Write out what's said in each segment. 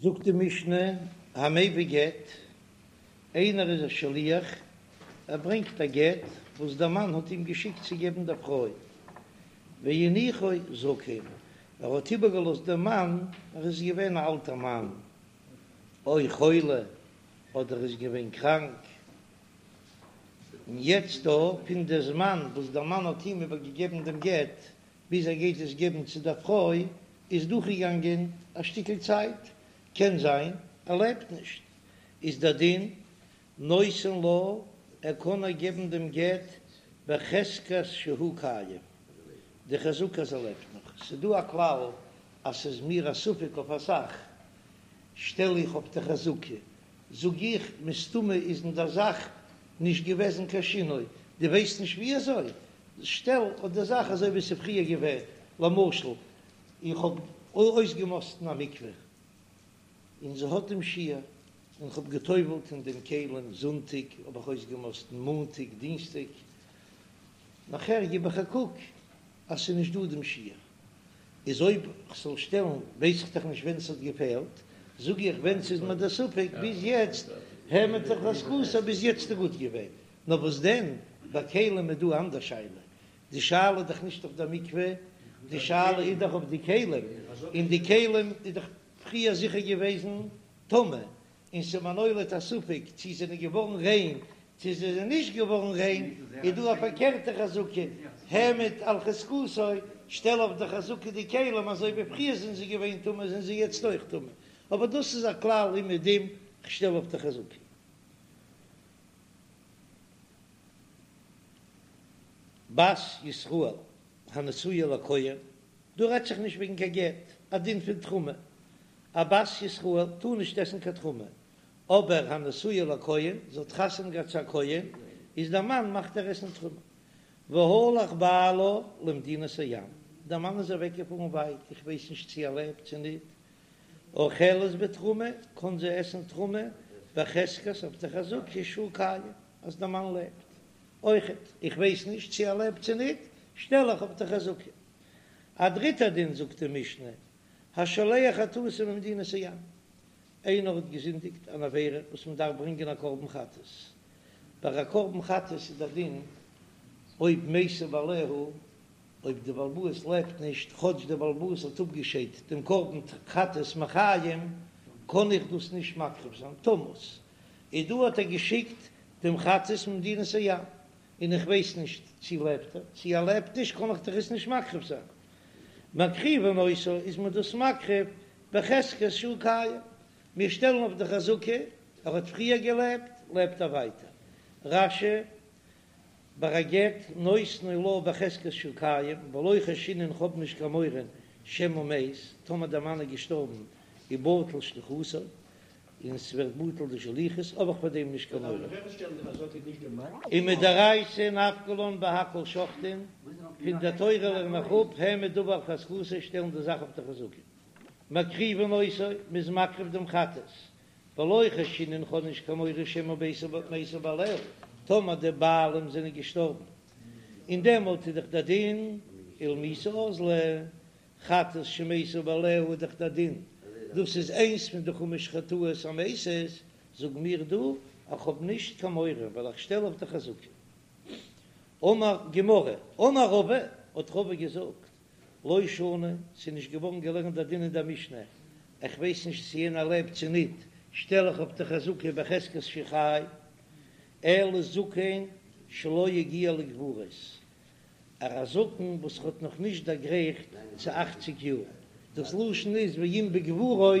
זאגט די משנה, המביא גט, איינער איז א שליח, ער ברענגט א גט וואס דער מאן האט אים געשיקט צו געבן דער פרוי, והניחו זקן, ער האט איבערגעלאזט דעם מאן, ער איז געווען א אלטער מאן, או חולה, אדער איז געווען קראנק, און יעצט דא פון די זמן וואס דער מאן האט אים איבערגעגעבן דעם גט ביז ער גייט עס געבן צו דער פרוי איז דורכגעגאנגען א שטיקל צייט, קען זיין ער לעבט נישט, איז דער דין נותן לה, ער קען איר געבן דעם גט בחזקת שהוא קיים, די חזקה אז ער לעבט נאך, ס'איז דא א כלל אז ס'איז מיר א ספק אויף א זאך, שטעל איך אויף די חזקה, זאג איך, מסתמא איז אין דער זאך נישט געוועזן קיין שינוי, דו ווייסט נישט ווי אזוי? שטעל אויף די זאך אזוי ווי ס'איז פריער געווען, למשל, איך האב אויסגעמאסטן א מקווה, און זי האט דעם שיעור, און כ'האב גע'טובל'ט אין דעם כלים, זונטאג האב איך אויסגעמאסטן, מאנטאג, דינסטאג, נאכער גיב איך א קוק אז ס'איז נישט דא דעם שיעור, איז אויב כ'זאל שטעלן ווייס איך דאך נישט ווען ס'האט געפעלט, זאג איך ווען ס'איז מיר דער ספק ביז יעצט העמד על חזקתו ביז יעצט איז גוט געווען, נאר וואס דען ביי כלים איז דא אן אנדער שאלה, די שאלה איז דאך נישט אויף דער מקווה, די שאלה איז דאך אויף די כלים, און די כלים איז דאך פריער זיכער געוועזן טמא, און ס'איז מיר נולד א ספק צי זענען געווארן ריין צי זיי זענען נישט געווארן ריין, איז דא א פארקערטע חזקה, העמד על חזקתו, שטעל אויף די חזקה די כלים אזוי ווי פריער זענען זיי געווען טמא זענען זיי יעצט אויך טמא, אבער דאס איז א כלל אומעדום, כ'שטעל אויף די חזקה. בת ישראל הנשואה לכהן, דא רעדט זיך נישט וועגן קיין גט, א דין פון תרומה, א בת ישראל טאר נישט עסן קיין תרומה, אבער הנשואה לכהן, זי האט חתונה געהאט צו א כהן, איז דער מאן מאכט איר עסן תרומה. והלך בעלה למדינת הים, דער מאן איז אוועק געפארן ווייט, איך ווייס נישט צו ער לעבט צו ניט, אוכלת בתרומה, קען זי עסן תרומה בחזקת אויף די חזקה שהוא קיים, אז דער מאן לעבט. אויכעט, איך ווייס נישט צו ער לעבט צו ניט, שטעל איך אויף די חזקה. א דריטער דין זאגט די משנה, השולח חטאתו ממדינת הים, איינער האט געזינדיגט אן עבירה וואס מען דארף ברענגען א קרבן חטאת, ביי א קרבן חטאת איז דער דין אויב מתו בעליה, אויב די בעל הבית לעבט נישט, כאטש דער בעל הבית האט אפגעשיידט דעם קרבן חטאת מחיים, קען איך דאס נישט מקריב זיין, תמות. איז דא האט ער געשיקט דעם חטאת ממדינת הים, און איך ווייס נישט צי לעבט ער, צי ער לעבט נישט קען איך דאך עס נישט מקריב זיין. מקריבין אותו איז מען דאס מקריב בחזקת שהוא קיים, מיר שטעלן אויף די חזקה, ער האט פריער געלעבט, לעבט ער ווייטער. רש"י, ביי א גט נותנו לה בחזקת שהוא קיים, ולא חיישינן כ'האב נישט קיין מורא שמא מת, טאמער דער מאן איז געשטארבן ובטל שליחותו, און ס'ווערט בטל די שליחות, האב איך פאר דעם נישט קיין מורא. ומדאורייתא נפקא לן בהכל שוחטין, פון דער תורה לערן איך אפ, העמד דבר על חזקתו, שטעלן די זאך אויף די חזקה. מקריבין אותו, מ'איז מקריב דעם חטאת, ולא חיישינן כ'האב נישט קיין מורא שמא מתו בעליה, טאמער די בעלים זענען געשטארבן, און דעמאלט איז דאך דער דין ולמיתה אזלא, חטאת שמתו בעליה איז דאך דער דין, דאס איז איינס פון די חמש חטאות המתות, זאג מיר דא איך האב נישט קיין מורא ווייל איך שטעל אויף די חזקה. אמר גמרא, אמר רבא, האט רבא געזאגט, לא שנו, ס'איז נישט געווארן געלערנט דער דין אין דער משנה, איך ווייס נישט צו יענער לעבט צו ניט, שטעל איך אויף די חזקה בחזקת שחי, אלא זקן שלא הגיע לגבורות, א זקן וואס האט נאך נישט דערגרייכט צו אכציג יאר, דאס לשון איז ואם בגבורות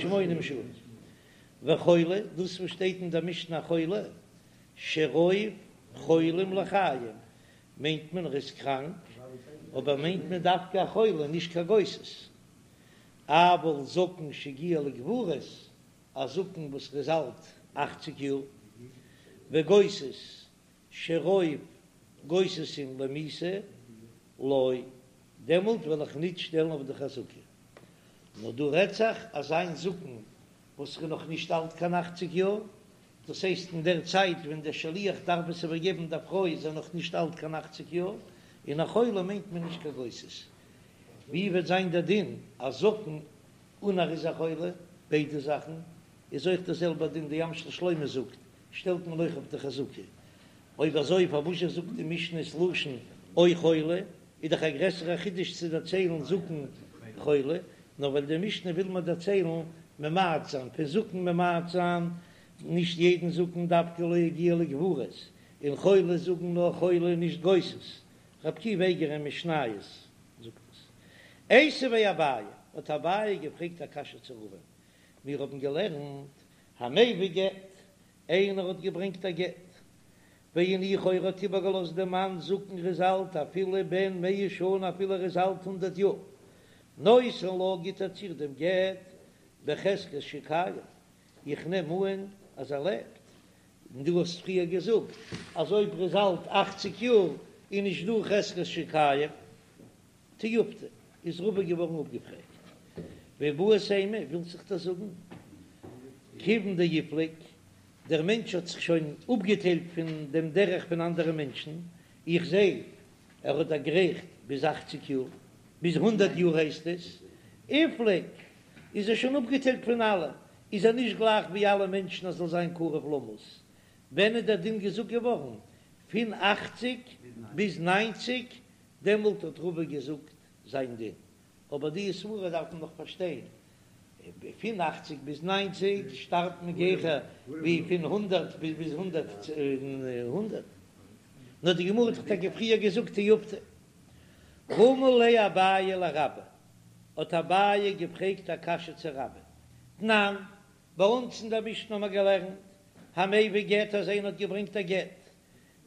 שמונים שנה, וחולה, דאס וואס שטייט אין דער משנה חולה, שרוב חולים לחיים, מיינט מען ער איז קראנק, אבער מיינט מען דווקא א חולה נישט קיין גוסס, אבל זקן שהגיע לגבורות, א זקן וואס איז אלט אכציג יאר, וגוסס שרוב גוססים למיתה לא, דעמאלט וועל איך ניט שטעלן אויף די חזקה. נאר דא רעדט זיך אזא זקן וואס איז נאך נישט אלט קיין אכציג יאר, דאס הייסט אין דער צייט ווען דער שליח דארף עס איבערגעבן דער פרוי איז ער נאך נישט אלט קיין אכציג יאר, און א חולה מיינט מען נישט קיין גוסס. ווי וועט זיין דער דין א זקן און ער איז א חולה? ביידע זאכן, איז אויך דער זעלבער דין, די ים של שלמה זאגט, שטעלט מען אויך אויף די חזקה. אויב אזוי פארוואזשע זאגט די משנה ס'לשון או חולה, איז דאך א גרעסערע חידוש צו דערציילן זקן חולה, נאר ווייל די משנה וויל מיר דערציילן ממעט זיין פון זקן ממעט זיין, נישט יעדן זקן דווקא לא הגיע לגבורות, און חולה זאגן נאר חולה נישט גוסס, ר' עקיבא אייגער אין משניות זאגט עס. איתיביה אביי, האט אביי געפרעגט א קשיא צו רבא'ן, מיר האבן געלערנט המביא גט, איינער האט געברענגט א גט, והניחו ער האט איבערגעלאזט דעם מאן זקן ער איז אלט אפילו בן מאה שנה אפילו ער איז אלט הונדערט יאר, נותן לה גיט ער צו איר דעם גט בחזקת שקיים, איך נעם אן אז ער לעבט, און דו האסט פריער געזאגט אז אויב ער איז אלט אכציג יאר איז נישט דא חזקת שקיים. תיובתא, איז רבא געווארן אפגעפרעגט. ואיבעית אימא, ווילסט זיך דאס זאגן? כיוון דאיפליג, דער מענטש האט זיך שוין אפגעטיילט פון דעם דרך פון אנדערע מענטשן, איך זע ער האט דערגרייכט ביז אכציג יאר, ביז הונדערט יאר הייסט עס, איפליג, איז ער שוין אפגעטיילט פון אלע, איז ער נישט גלייך ווי אלע מענטשן אז זאל זיין קרוב למות. ווען איז דער דין געזאגט געווארן? פון אכציג ביז ניינציג דעמאלט האט רבא געזאגט זיין דין, אבער די סברא דארף מען נאך פארשטיין, פון אכציג ביז ניינציג שטארבט מען גיכער ווי פון הונדערט ביז הונדערט, נאר די גמרא האט דאך טאקע פריער געזאגט תיובתא. רמי ליה אביי לרבה, האט אביי געפרעגט א קשיא צו רבה, תנן, ביי אונז אין דער משנה האבן מיר געלערנט, המביא גט אז איינער האט געברענגט א גט,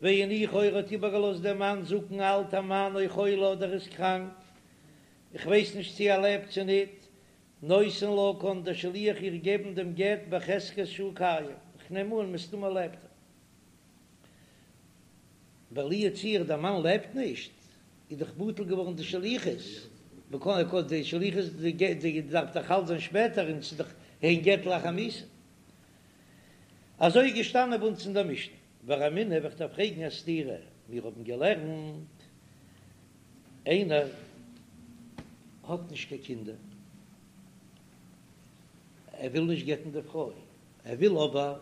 והניחו ער האט איבערגעלאזט דעם מאן זקן אלטער מאן או חולה אדער איז קראנק, איך ווייס נישט צו ער לעבט צו ניט, נותן לה קאן דער שליח איר געבן דעם גט בחזקת שהוא קיים, איך נעם אן מסתמא לעבט ער. ווייל לו יצוייר דער מאן לעבט נישט, איז דאך בטל געווארן די שליחות, מ'קען קען די שליחות די דארף דאך חל זיין שפעטער און ס'איז דאך אין גט לאחר מיתה. אזוי איז געשטאנען ביי אונז אין דער משנה. ורמינהו וועל איך דיר פרעגן א סתירה, מיר האבן געלערנט איינער האט נישט קיין קינדער, ער וויל נישט גט'ן די פרוי, ער וויל אבער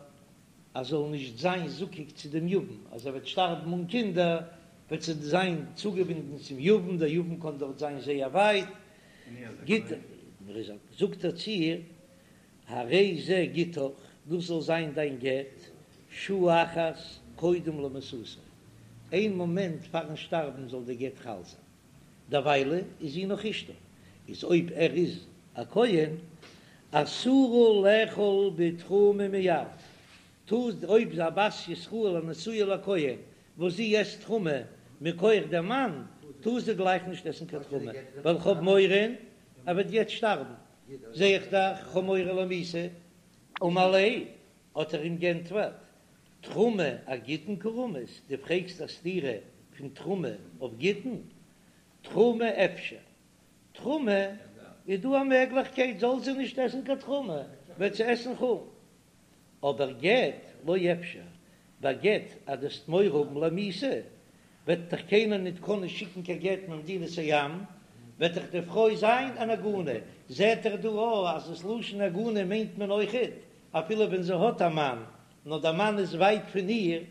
אז זאל נישט זיין זקוק צו דעם יבם, אז ער וועט שטארבן אן קינדער וועט זי זיין צוגעבינדן צום יבם, דער יבם קען דארט זיין זייער ווייט, גיט ער, זאגט ער צו איר, הרי זה גיטך, דאס זאל זיין דיין גט, שעה אחת קודם למיתתו, איין מאמענט פארן שטארבן זאל די גט חל זיין, דערוויילע איז זי נאך אשתו, איז אויב ער איז א כהן, אסורה לאכול בתרומה מיד, טאר אויב איז א בת ישראל הנשואה לכהן וואס זי עסט תרומה מכח דעם מאן, טאר זי גלייך נישט עסן קיין תרומה, ווייל כ'האב מורא ער וועט יעצט שטארבן. זע איך דאך כ'האב מורא למיתה, אמר ליה, האט ער אים גענטפערט, תרומה אגיטין קא רמית, דו פרעגסט א סתירה פון תרומה אויף גיטין? תרומה אפשר, תרומה איז דא א מעגליכקייט זאל זי נישט עסן קיין תרומה, וועט זי עסן חולין, אבער גט לא אפשר, ביי גט אז דו וועסט מורא האבן למיתה, וועט דאך קיינער ניט קענען שיקן קיין גט ממדינת הים, וועט דאך די פרוי זיין אן עגונה. זעט ער דא אויך אז דאס לשון עגונה מיינט מען אויכעט אפילו ווען זי האט א מאן, נאר דער מאן איז ווייט פון איר,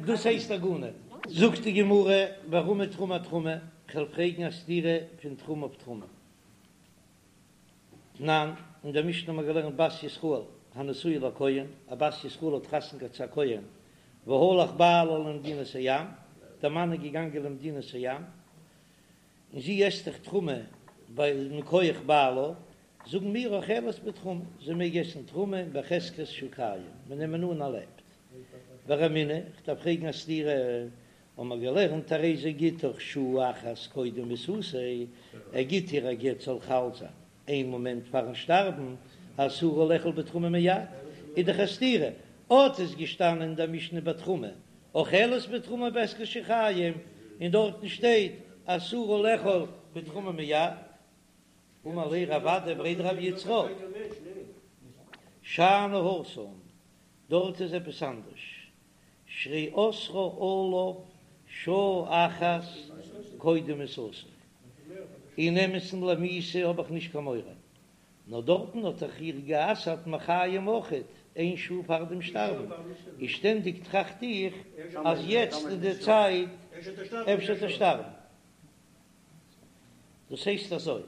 דאס הייסט עגונה. זאגט די גמרא, ורמי תרומה אתרומה, כ'וועל פרעגן א סתירה פון תרומה אויף תרומה. תנן, אין דער משנה האבן מיר געלערנט בת ישראל הנשואה לכהן, א בת ישראל האט חתונה געהאט צו א כהן, והלך בעלה למדינת הים, דער מאן איז געגאנגען למדינת הים, און זי עסט דאך תרומה ווייל מכח בעלה, זאגן מיר אוכלת בתרומה, זי מעג עסן תרומה בחזקת שהוא קיים, מיר נעמען אן ער לעבט. ורמינהו, כ'דארף פרעגן א סתירה, האבן מיר געלערנט הרי זה גיטך שעה אחת קודם מיתתו, ער גיט איר א גט זאל חל זיין איין מאמענט פארן שטארבן, אסורה לאכול בתרומה מיד, איז דאך א סתירה, אט איז געשטאנען אין דער משנה בתרומה, אוכלת בתרומה בחזקת שקיים, און דארטן שטייט אסורה לאכול בתרומה מיד. אמר ליה רב אדא בריה דרב יצחק, שאני התם, דארט איז עפעס אנדערש, שהרי אסרה עליו שעה אחת קודם מיתתו, אין אמת'ן למיתה האב איך נישט קיין מורא. נאר דארטן האט דאך איר גע'אסר'ט מחיים אויכעט איין שעה פאר דעם שטארבן, איז שטענדיג טראכט איך אז יעצט איז די צייט אפשר וועט ער שטארבן. דאס הייסט אזוי,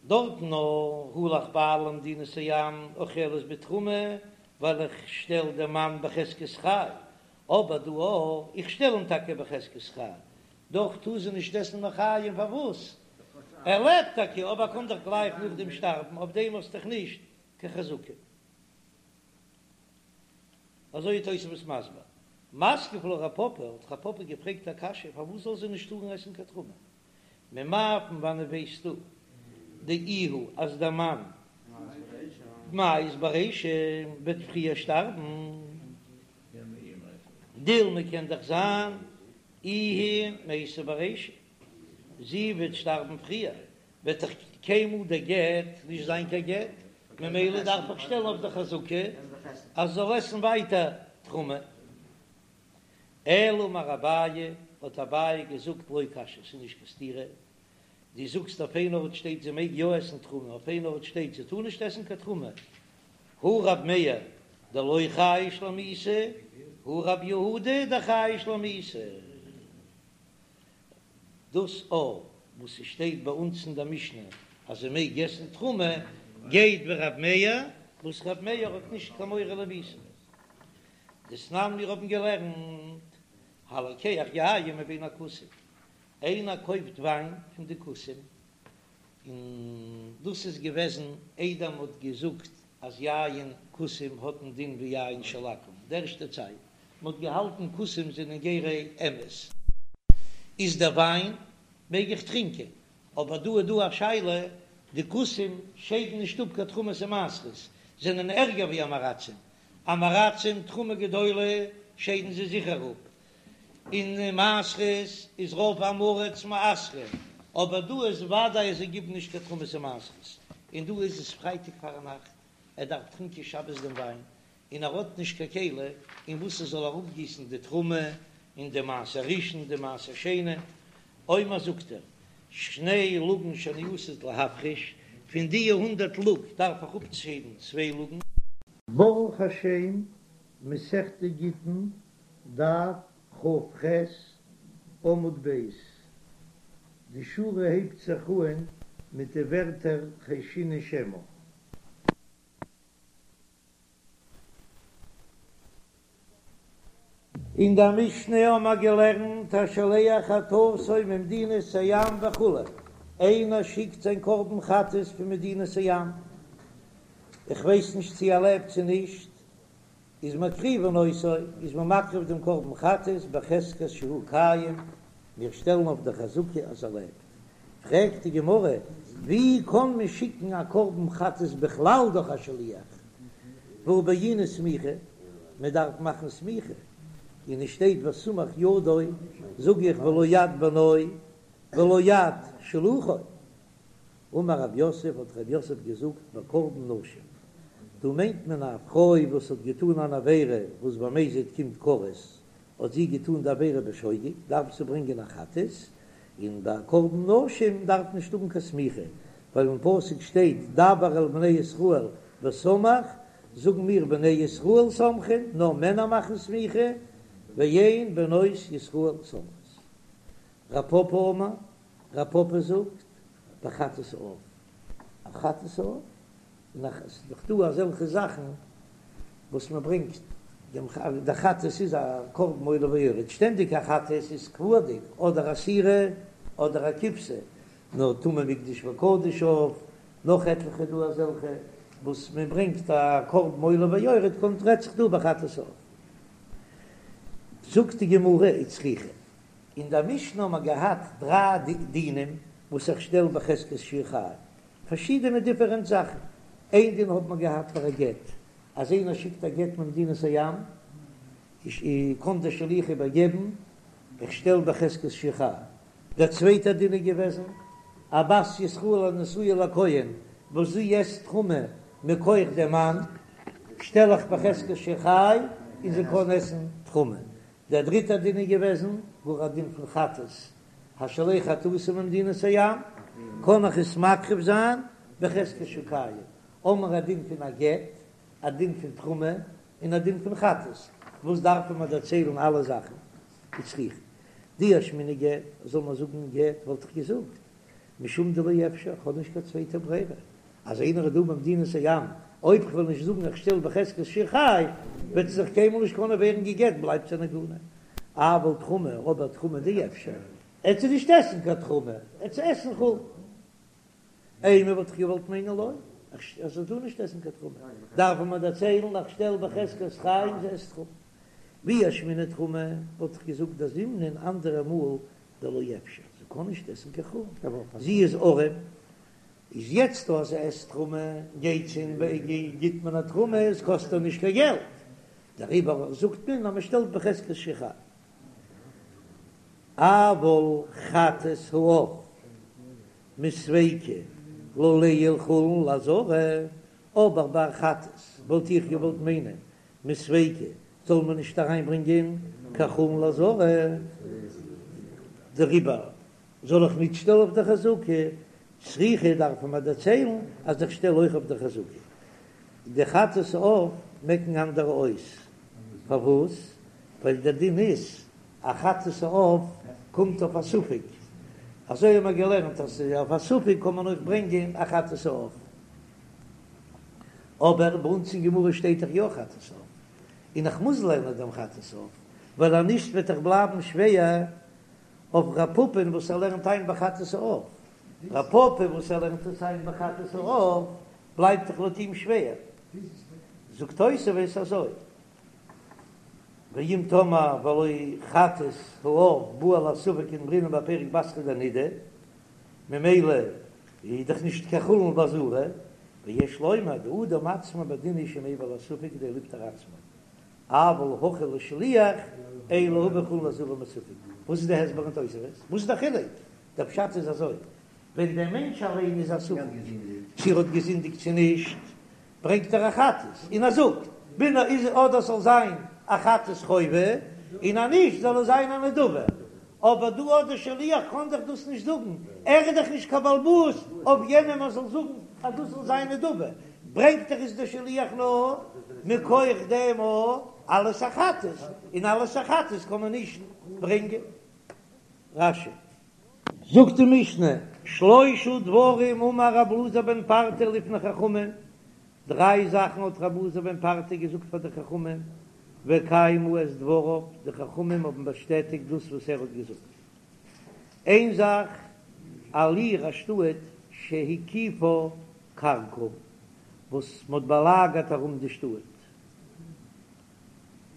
דארטן נאר הלך בעלה למדינת הים אוכלת בתרומה, ווייל איך שטעל דעם מאן בחזקת חי, אבער דא אויך, איך שטעל אים טאקע בחזקת חי, דאך טאר זי נישט עסן מחיים, פארוואס? ער לעבט טאקע, אבער ער קען דאך גלייך נאכדעם שטארבן, אויף דעם האסט דאך נישט קיין חזקה. אזוי איז תוספות מסביר. מתקיף לה רב פפא, האט רב פפא געפרעגט א קשיא, פארוואס זאל זי נישט טארן עסן קיין תרומה? ממאי פון וואנעט ווייסטו דאיהו אז דער מאן מיית ברישא וועט פריער שטארבן? דילמא קען דאך זיין איהי מייתא ברישא, זי וועט שטארבן פריער, וועט דאך קיינמאל דער גט נישט זיין קיין גט, ממילא דארף איך שטעלן אויף די חזקה אז זי זאל עסן ווייטער תרומה. אלא אמר אביי, האט אביי געזאגט לא קשיא, ס'איז נישט קיין סתירה, דו זאגסט אויף איין ארט שטייט זי מעג יא עסן תרומה, אויף איין ארט שטייט זי טאר נישט עסן קיין תרומה, הא רב מאיר דלא חייש למיתה, הא רב יהודה דחייש למיתה. דאס א וואס ס'שטייט ביי אונז אין דער משנה אז זי מעג עסן תרומה, גייט ווי רב מאיר, וואס רב מאיר האט נישט קיין מורא למיתה. דתנן מיר האבן געלערנט, הלוקח יין מבין הכותים, איינער קויפט וויין פון די כותים, און דאס איז געוועזן איידער מען האט געזאגט אז יין כותים האט א דין ווי יין של עכו"ם, די ערשטע צייט מען האט געהאלטן כותים זענען גרי אמת, איז דער וויין מעג איך טרינקען, אבער דא איז דא א שאלה, די כותים שיידן נישט אפ קיין תרומות און מעשרות, זענען ערגער ווי עם הארצים, עם הארצים תרומה גדולה שיידן זיי זיכער אפ, און מעשרות איז רוב עם הארץ מעשרים, אבער דא איז וודאי אז זיי גיבן נישט קיין תרומות און מעשרות, און דא איז עס פרייטאג פארנאכט, ער דארף טרינקען שבת דעם וויין, און ער האט נישט קיין כלי אין וואס ער זאל אראפגיסן די תרומה און די מעשר ראשון די מעשר שני, אומר זאגט ער, שני לוגין שאני עתיד להפריש, פון די הונדערט לוג דארף איך אפשיידן צוויי לוגין. ברוך השם, מסכת גיטין, דף כ"ח, עמוד ב', די שורה הייבט זיך אהן מיט די ווערטער חיישינן שמא. אין דער משנה האבן מיר געלערנט השולח חטאתו ממדינת הים וכו', איינער שיקט זיין קרבן חטאת פון מדינת הים, איך ווייס נישט צו ער לעבט צו נישט, איז מקריבין אותו, איז מען מקריב דעם קרבן חטאת בחזקת שהוא קיים, מיר שטעלן אויף די חזקה אז ער לעבט. פרעגט די גמרא, ווי קען מען שיקן א קרבן חטאת בכלל דורך א שליח? והא בעינן סמיכה, מען דארף מאכן סמיכה, און עס שטייט וסמך ידו, זאג איך ולא יד בנו ולא יד שלוחו. אמר רב יוסף, האט רב יוסף געזאגט, בקרבן נשים, דא מיינט מען א פרוי וואס האט געטאן אן עבירה וואס במזיד קומט כרת, האט זי געטאן די עבירה בשוגג, דארף זי ברענגען א חטאת, און ביי קרבן נשים דארף נישט האבן קיין סמיכה, ווייל אין פסוק שטייט דבר אל בני ישראל וסמך, זאגן מיר בני ישראל סומכין, נאר מענער מאכן סמיכה, ואין בנות ישראל סומכות. רב פפא אמר, רב פפא זאגט, בחטאת העוף, א חטאת העוף, און עס איז דאך דא אזעלכע זאכן וואס מען ברענגט דעם דער חטאת איז א קרבן עולה ויורד, שטענדיג א חטאת איז קבוע'דיג, אדער א שעירה אדער א כבשה, נאר טמא מקדש וקדש עוף, נאך עטליכע דא אזעלכע וואס מען ברענגט א קרבן עולה ויורד, קומט רעדט זיך דא בחטאת העוף. זאגט די גמרא וצריכא, אין דער משנה האבן מיר געהאט דריי דינים וואס איך שטעל בחזקת שהוא חי, פארשידענע דיפערענט זאכן, איין דין האט מען געהאט פאר א גט, אז איינער שיקט א גט ממדינת הים, קען דער שליח איבערגעבן, איך שטעל בחזקת שהוא חי. דער צווייטער דין איז געוועזן, א בת ישראל הנשואה לכהן וואס זי עסט תרומה מכח דעם מאן, שטעל איך בחזקת שהוא חי און זי קען עסן תרומה. דער דריטער דין איז געוועזן, גאר א דין פון חטאת, השולח חטאתו ממדינת הים, קען איך עס מקריב זיין. בחזקת שהוא קיים, האמיר א דין פון א גט, א דין פון תרומה, און א דין פון חטאת, וואס דארפן מיר דערציילן אלע זאכן? וצריכא דאי אשמעינן גט, זאל מען זאגן גט וואלט איך געזאגט משום דלא אפשר, כ'האב נישט קיין צווייטע ברירה, אז איינער איז דא במדינת הים, אויב כ'וועל נישט זאגן איך שטעל בחזקת שהוא חי, וועט זי זיך קיינמאל נישט קענען ווערן גע'גט, בלייבט זי אן עגונה. אבל תרומה, אבער תרומה דאפשר, עט זי נישט עסן קיין תרומה, עט זי עסן חולין. אימא וואלט איך געוואלט מיינען לא, אז זי טאר נישט עסן קיין תרומה, דארף מען דערציילן איך שטעל בחזקת חי און זי עסט תרומה. ואי אשמעינן תרומה וואלט איך געזאגט דזימנין אנדערע מאל דלא אפשר, זי קען נישט עסן קיין חולין, זי איז ארעם, איז יעצט אז זי עסט תרומה גייט זי און גיט מען איר תרומה, עס קאסט איר נישט קיין געלט, דעריבער זאגט מען אז מען שטעלט בחזקת שהוא חי. אבל חטאת העוף מספיקא לא ליעול חולין לעזרה, אבער ביי חטאת וואלט איך געוואלט מיינען מספיקא זאל מען נישט אריינברענגען קיין חולין לעזרה, דעריבער זאל איך נישט שטעלן אויף די חזקה, צריכא דארף מען דערציילן אז איך שטעל אויך אויף די חזקה. די חטאת העוף מעקן אנדערע אויס, פארוואס? ווייל דער דין איז א חטאת העוף קומט אויף א ספק, אזוי האבן מיר געלערנט אז אויף א ספק קען מען אויך ברענגען א חטאת העוף, אבער ביי אונז אין גמרא שטייט דאך יא חטאת העוף, און איך מוז לערנען דעם חטאת העוף, ווייל אז נישט וועט דאך בלייבן שווער אויף ר' פפא'ן וואס ער לערנט איין ביי חטאת העוף, ר' פפא וואס ער לערנט עס איין ביי חטאת העוף בלייבט דאך לויט אים שווער, זאגט תוספות אזוי, ואם תאמר והלא חטאת העוף בא על הספק כדאמרינן בפרק בתרא דנידה, ממילא איז דאך נישט קיין חולין בעזרה, ויש לומר דאדם עצמו בדין הוא שמביא על הספק כדי לפטור עצמו, אבל הכא לשליח אין להביא חולין לעזרה מספק. וואס איז די הסבר אין תוספות? וואס איז די חילוק? דער פשט איז אזוי, ווען דער מענטש אליין איז א ספק צו ער האט געזינדיגט צו נישט, ברענגט ער א חטאת און ער זאגט בין איז אדער ס'זאל זיין א חטאת חובה און אז נישט זאל עס זיין א נדבה, אבער דא האט דער שליח קען דאך דאס נישט זאגן, ער איז דאך נישט קיין בעל הבית אויף יענעם ער זאל זאגן אז דאס זאל זיין נדבה, ברענגט דאך עס דער שליח נאר מכח דעם אלס א חטאת, און אלס א חטאת קען מען נישט ברענגען. רש"י. זאגט די משנה, שלושה דברים אמר רב אלעזר בן פרטא לפני חכמים, דריי זאכן האט רב אלעזר בן פרטא געזאגט פאר די חכמים, וקיימו את דבריו, די חכמים האבן באשטעטיגט דאס וואס ער האט געזאגט. איין זאך, על עיר א שטאט שהקיפה כרכום, וואס מ'האט באלאגערט ארום די שטאט,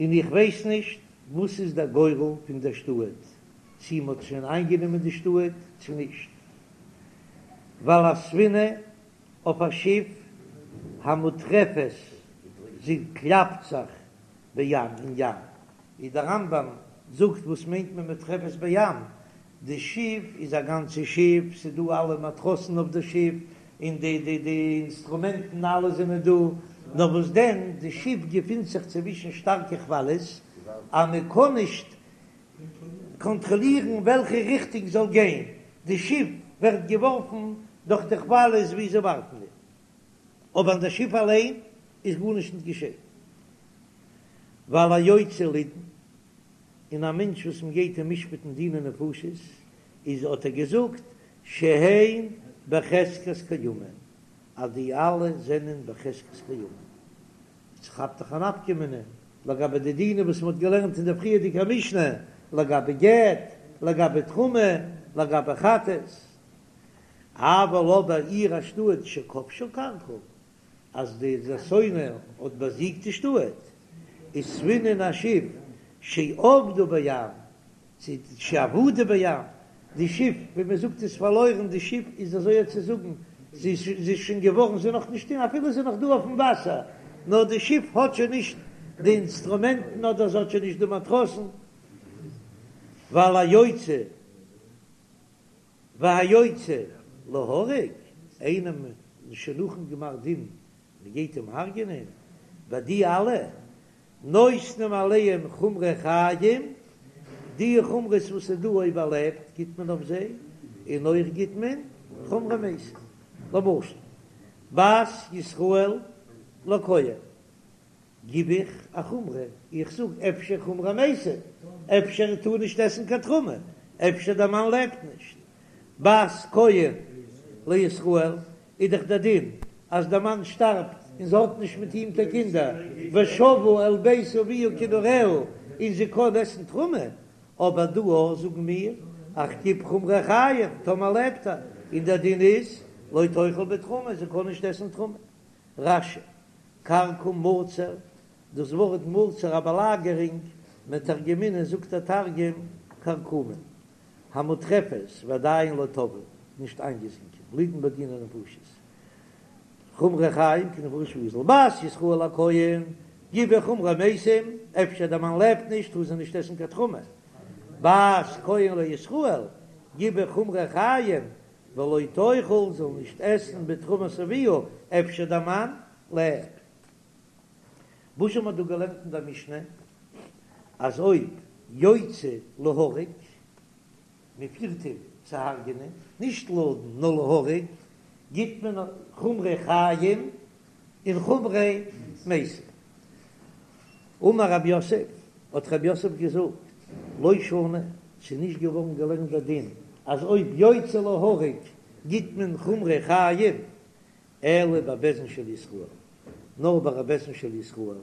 און איך ווייס נישט וואס איז דער גורל פון דער שטאט, צי מ'האט שוין איינגענומען די שטאט צו נישט, ועל הספינה אויף א שיף המוטרפת, זי קלאפט זיך בים אין ים, ווי דער רמב"ם זאגט וואס מיינט מען מוטרפת בים, די שיף איז א גאנצע שיף, ס'איז דא אלע מאטראסן אויף די שיף, און די די די אינסטרומענטן אלע זענען דא, נאר וואס דען די שיף געפינט זיך צווישן שטארקע כוואליעס, אז מען קען נישט קאנטראלירן וועלכע ריכטונג זאל גיין, די שיף ווערט געווארפן דורך די כוואליעס ווי זיי ווארפן איר, אבער אין די שיף אליין איז גארנישט נישט געשען. ועל היוצא לידון, און א מענטש וואס מען גייט אים משפט'ן דיני נפשות, איז האט ער געזאגט שהן בחזקת קיימין, אז די אלע זענען בחזקת קיימין. ס'כאפט דאך א נפקא מינה לגבי די דינים וואס מ'האט געלערנט אין דער פריערדיגער משנה, לגבי גט, לגבי תרומה, לגבי חטאת. אבל אבער עיר א שטאט שכבשה כרכום, אז די שונא האט באזיגט די שטאט, וספינה א שיף שאבדה בים, צו שאבדה בים, די שיף ווי מען זאגט איז פארלוירן, די שיף איז אזוי צו זאגן, זי איז שוין געווארן, זי איז נאך נישט אין, אפילו זי איז נאך דא אויפן וואסער, נאר די שיף האט שוין נישט די אינסטרומענטן אדער זי האט שוין נישט די מאטראסן, ועל היוצא והיוצא להורג, איינעם שוין נאכן גמר דין, מען גייט אים הרג'ענען, ביי די אלע נותנים עליהם חומרי חיים, די חומרות וואס איז דא אויב ער לעבט גיט מען אויף זיי, און אויך גיט מען חומרי מתים, למשל. בת ישראל לכהן, גיב איך א חומרא, איך זאג אפשר חומרי מתים, אפשר טאר נישט עסן קיין תרומה, אפשר דער מאן לעבט נישט. בת כהן לישראל איז דאך דער דין אז דער מאן שטארבט און זי האט נישט מיט אים קיין קינדער, ושבה אל בית אביה כנעוריה, און זי קען עסן תרומה, אבער דא אויך זאגן מיר איך גיב חומרי חיים טאמער לעבט ער, און דער דין איז לא תאכל בתרומה, זי קען נישט עסן תרומה. רש"י, כרכום מצור, דאס ווארט מצור א באלאגערונג, מתרגמינן זאגט דער תרגום כרכומין, המוטרפת ועדיין לא טבעו, נישט איינגעזינקען, לידון בדיני נפשות, חומרי חיים כנפשות ואזיל, בת ישראל לכהן, גיב איך חומרי מתים, אפשר דער מאן לעבט נישט טאר זי נישט עסן קיין תרומה, בת כהן לישראל, גיב איך חומרי חיים, ולא תאכל זאל נישט עסן בתרומת אביה, אפשר דער מאן לעבט. וואס האט מען דא געלערנט אין דער משנה אז אויב יוצא להורג, מען פירט אים צו הרג'נען, נישט לדון נאר להורג, גיט מען חומרי חיים און חומרי מתים. אמר רב יוסף, האט רב יוסף געזאגט, לא שנו, ס'איז נישט געווארן געלערנט דער דין אז אויב יוצא להורג גיט מען חומרי חיים, אלא בבית דין של ישראל, נאר ביי א בית דין של ישראל,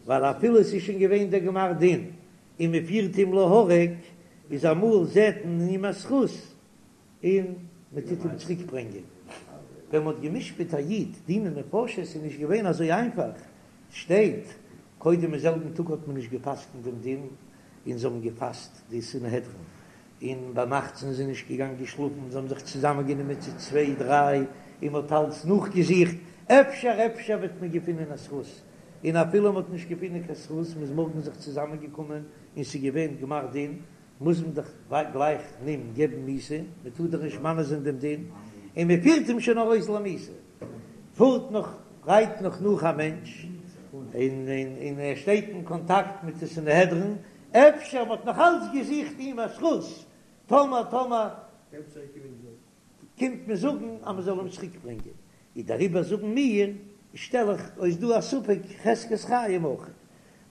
ווייל אפילו עס איז שוין געווען דער גמר דין און מען פירט אים להורג, איז אמאל זעט מען אין אים א זכות און מען טוט אים צוריק ברענגען. ווען מען האט גע'משפט א איד דיני נפשות איז נישט געווען אזוי איינפאך, שטייט, קודם אין זעלבן טאג האט מען נישט גע'פסק'נט דעם דין, און זיי האבן געפאסט די סנהדרין, און ביינאכט זענען זיי נישט געגאנגען שלאפן, זיי האבן זיך צוזאמען גענומען צו צוויי דריי, און מען האט אלץ נאכגעזוכט, אפשר אפשר וועט מען געפינען א זכות, און אפילו מען האט נישט געפינען קיין זכות, מען איז מארגן זיך צוזאמען געקומען און ס'איז געווען גמר דין, מוז מען דאך גלייך אים געבן מיתה, מען טאר דאך נישט מענה זיין דעם דין, און מען פירט אים שוין ארויס למיתה, פארט נאך, רייט נאך נאך א מענטש, און און ער שטייט אין קאנטאקט מיט די סנהדרין, אפשר מען האט נאך אלץ געזוכט אים א זכות, טאמער טאמער קומט מען זאגן אז מען זאל אים צוריק ברענגען, איז דעריבער זאגן מיר, שטעל איך אויס דא א ספק חזקת חיים אויך,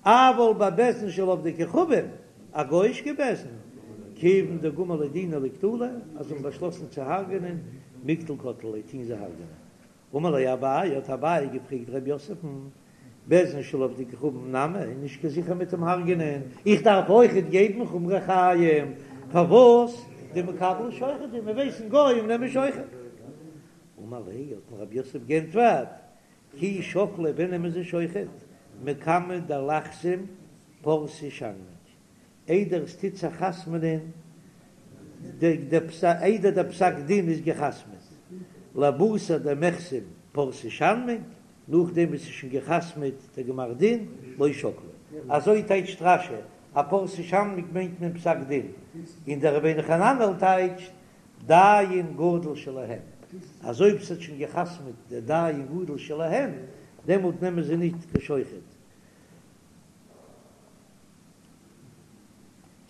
אבל בבית דין של עובדי כוכבים, א גוי'אישקע בית דין, כיוון דגמר ליה דינא לקטלא, אז זיי האבן באשלאסן צו הרג'נען, מיקטל קטלי ליה, טוהן זיי הרג'נען. אמר ליה אביי, האט אביי געפרעגט ר' יוסף'ן, בית דין של עובדי כוכבים נמי, איז נישט קיין זיכער מיט דעם הרג'נען, איך דארף אויכעט געבן חומרי חיים, פארוואס דמקבלי שוחד, מיר ווייסן גוים נעמען שוחד. אמר ליה, האט אים ר' יוסף גענטפערט, כי שקלי ווען נעמען זיי שוחד, מקמי דליחתום פרסי שנמג, איידער עס טוט זיך חתמ'נען איידער דער פסק דין איז געחתמ'עט, לבתר דמיחתם פרסי שנמג, נאכדעם וואס ס'איז שוין געחתמ'עט דער גמר דין, לא שקלי. אזוי טייטשט רש"י, א פרסי שנמג מיינט מען פסק דין, און דער רבינו חננאל טייטשט דיין גדול שלהם, אז אויב ס'האט שוין געחתמ'עט דער דיין גדול שלהם, דעמאלט נעמען זיי ניט קיין שוחד.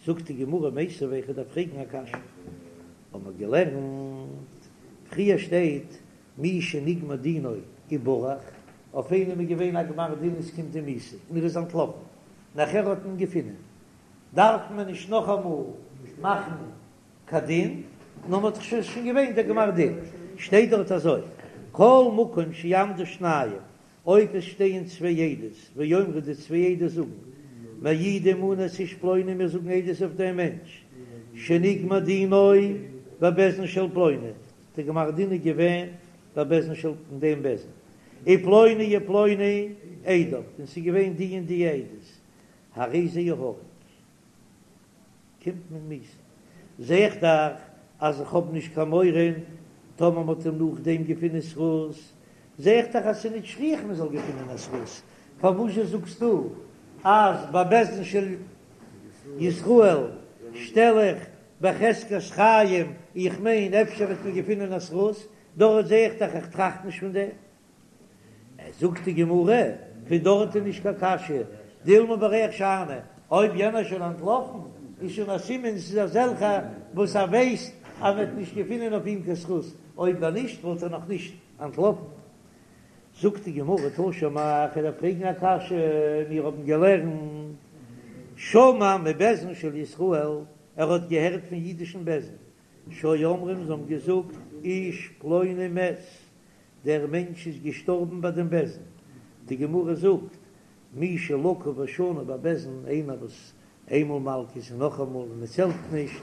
זאגט די גמרא מיתיבי איך דארף פרעגן א קשיא, האבן מיר געלערנט פריער שטייט מי שנגמר דינו וברח, אויף איינעם איז געווען א גמר דין עס קומט אים מיתה און ער איז אנטלאפן, נאכער האט מען געפונען, דארף מען נישט נאכאמאל מאכן קיין דין, נאר מען האט דאך שוין שוין געווען דער גמר דין, שטייט דארט אזוי כל מקום שיעמדו שניים אויב עס שטייען צוויי עדות, ויאמרו די צוויי עדות זאגן, מעידים אנו את איש פלוני מיר זאגן עדות אויף דעם מענטש, שנגמר דינו בבית דין של פלוני, די גמר דין איז געווען בבית דין של אין דעם בית דין, ופלוני ופלוני עדיו, און ס'איז געווען די און די עדות, הרי זה יהרג. קומט מען מיתה. זע איך דאך אז איך האב נישט קיין מורא טאמער מ'האט אים נאכדעם געפונען זכות, זע איך דאך אז ס'איז נישט שכיח מ'זאל געפונען א זכות, פארוואזשע זאגסטו אז ביי בית דין של ישראל שטעל איך בחזקת חיים, איך מיין אפשר וועט מען געפונען א זכות, דארט זע איך דאך איך טראכט נישט פון דעם. זאגט די גמרא, פון דארט איז נישט קיין קשיא, דילמא בורח שאני, אויב יענער איז שוין אנטלאפן, איז שוין א סימן ס'איז אזעלכע וואס ער ווייסט אז מ'וועט נישט געפינען אויף אים קיין זכות, אויב נישט וואלט ער נאך נישט אנטלאפן. זאגט די גמרא תא שמע, כ'וועל דיר פרעגן א קשיא, מיר האבן געלערנט שמע מבית דין של ישראל, ער האט געהערט פון אידישן בית דין, שהיו אומרים זיי האבן געזאגט איש פלוני מת, דער מענטש איז געשטארבן ביי דעם בית דין, די גמרא זאגט מי שלקה ושנה בבית דין, איינער וואס איינמאל מלקות און נאכאמאל און עס העלפט נישט,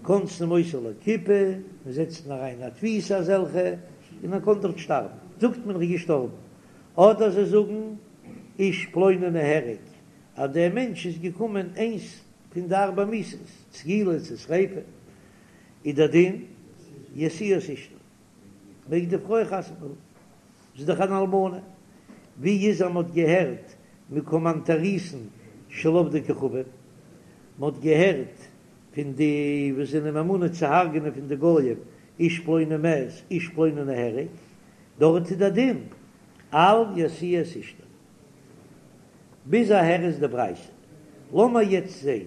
כונסין אותו לכיפה, מען זעצט אים אריין אין א תפיסה אזעלכע, און ער קען דארט שטארבן, זאגט מען ער איז געשטארבן, אדער זיי זאגן איש פלוני נהרג, אז דער מענטש איז געקומען איינס פון די ארבע מיתות, סקילה צו שריפה, איז דער דין ישיאו את אשתו, מעג די פרוי חתונה האבן, זי איז דאך אן אלמנה, ווי איז אז מען האט געהערט מקומנטריסין של עובדי כוכבים, מען האט געהערט פון די וואס זענען ממונה צו הרג'נען פון די גויים, איש פלוני מת, איש פלוני נהרג, דארט איז דער דין אל ישיאו את אשתו. ביז אהער איז די ברייתא. לאמיר יעצט זעהן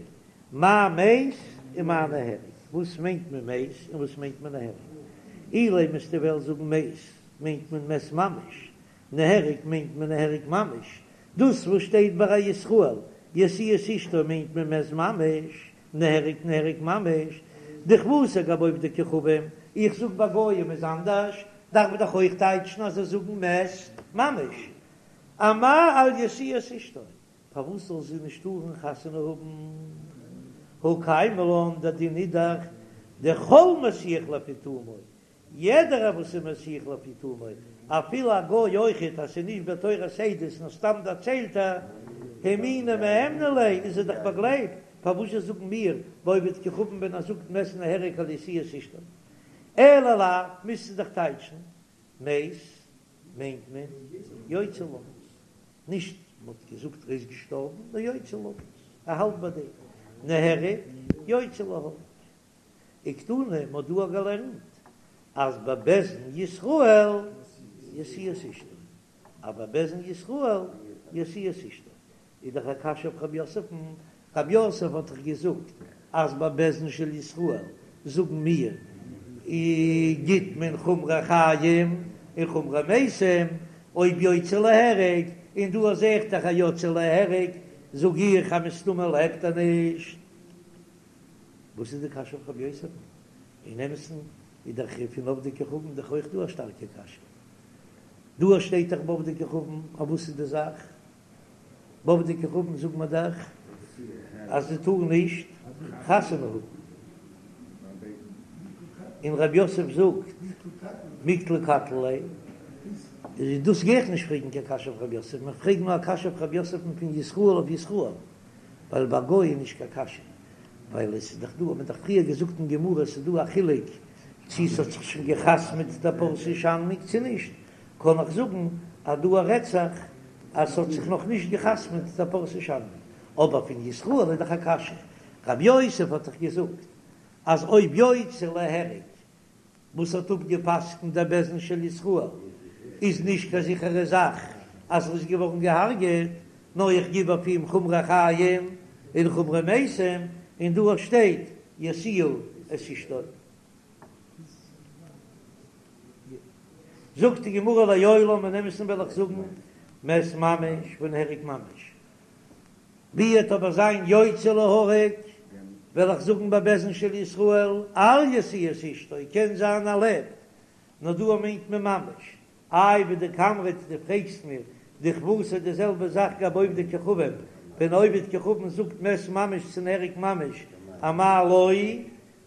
מאי מת און מאי נהרג. וואס מיינט מען מת און וואס מיינט מען נהרג? אילימא וועסטו וועלן זאגן מת מיינט מען מת ממש, נהרג מיינט מען נהרג ממש. דאס וואס שטייט ביי א ישראל ישיאו את אשתו מיינט מען מת ממש, נהרג נהרג ממש. דכוותיה גבי עובדי כוכבים, איך זאג ביי גויים איז אנדערש, דארף מען דאך אויך טייטשן אז זיי זאגן מת ממש. אמאי אל ישיאו את אשתו, פארוואס זאל זי נישט טארן חתונה האבן? הא קיימא לן, דער דין איז דאך דכל מסיח לפי תומו, יעדער וואס איז מסיח לפי תומו, אפילו א גוי אויכעט, אז ס'איז נישט בתורת עדות נאר סתם דערציילט ער, הימוני מהימני ליה, איז ער דאך באגלייבט, פארוואס זשע זאגן מיר ביי עובד כוכבים ווען ער זאגט מת נהרג אל ישיאו את אשתו? אלא לאו, מוזטו דאך טייטשן מת מיינט מען יוצא למות, נישט מ'האט געזאגט ער איז געשטארבן, נאר יוצא למות, ער האלט ביי דעם, נהרג יוצא להורג. וקתני, מ'האט דא געלערנט אז בבית דין ישראל ישיאו את אשתו, אז בבית דין ישראל ישיאו את אשתו, איז דאך א קשיא אויף רב יוסף'ן, רב יוסף האט דאך געזאגט אז בבית דין של ישראל זאגן מיר גיט מען חומרי חיים און חומרי מתים, אויב יוצא להרג, און דא זעה איך דאך אז יוצא להרג זאג איך אז מסתמא לעבט ער נישט. וואס איז די קשיא אויף רב יוסף'ן? אין אמת'ן איז דאך פון עובדי כוכבים דאך אויך דא א שטארקע קשיא. דא שטייט דאך בעובדי כוכבים, אויף וואס איז די זאך? בעובדי כוכבים זאגט מען דאך אז זי טאר נישט חתונה האבן, און רב יוסף זאגט מיקטלא קטלי ליה, איז דאס גיי איך נישט פרעגן קיין קשיא אויף רב יוסף, מען פרעגט נאר א קשיא אויף רב יוסף'ן פון ישראל אויף ישראל, ווייל ביי גוי איז נישט קיין קשיא, ווייל עס איז דאך דא, האט מען דאך פריער געזאגט אין גמרא עס איז דא א חילוק צו עס האט זיך שוין גע'חתמ'עט די פרסי שנמג צו נישט, קען איך זאגן אז דא רעדט זיך אז ס'האט זיך נאך נישט גע'חתמ'עט די פרסי שנמג, אבער פון ישראל איז דאך א קשיא, רב יוסף האט דאך געזאגט אז אויב יוצא להרג וואס האט אפגע'פסק'נט דער בית דין של ישראל איז נישט קיין זיכערע זאך אז ער איז געווארן געהארגעט, נאר איך גיב אויף אים חומרי חיים און חומרי מתים, און דא שטייט ישיאו את אשתו. זאגט די גמרא לעולם אין אמת'ן וועל איך זאגן מת ממש ונהרג ממש, ווי וועט אבער זיין יוצא להורג וועל איך זאגן בבית דין של ישראל אל ישיאו את אשתו קען זיין ער לעבט נאר דא מיינט מען ממש איי ודקאמרת דו פרעגסט מיר דכוותיה די זעלבע זאך גבי עובדי כוכבים ווען עובד כוכבים זאגט מת ממש צו נהרג ממש אמאי לא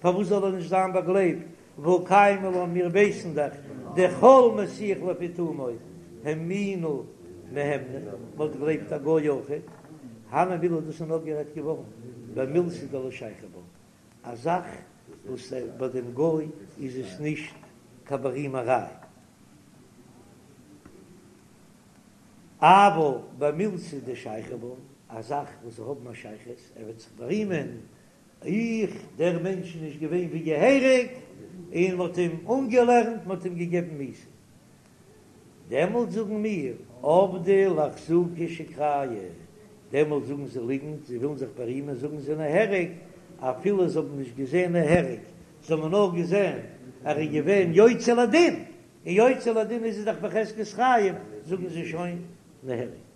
פארוואס זאל ער נישט זיין באגלייבט והא קיימא לן מיר ווייסן דאך דכל מסיח לפי תומו הימוני מהימני מ'וואלט געגלייבט א גוי אויכעט הני מילי דאס איז נאר גערעדט געווארן במילתא דלא שייכא בה א זאך וואס ביי דעם גוי איז עס נישט קיין בארימעריי. אבל במילתא דשייכא בה, א זאך וואס זיי האבן א שייכות, ער וועט זיך בארימען, איך, דער מענטש איז נישט געווען ווי געהעריג, און מען האט אים אנגעלערנט, מען האט אים געגעבן מיתה. דעמאלט זאגן מיר, עבדי לאחזוקי שיקרייהו, דעמאלט זאגן זיי ליגנט, זיי ווילן זיך בארימען, זאגן זיי נהרג, אפילו זיי האבן נישט געזען נהרג, זיי האבן נאר געזען ער איז געווען יוצא לדין, און יוצא לדין איז ער דאך בחזקת חיים, זאגן זיי שוין נהרג.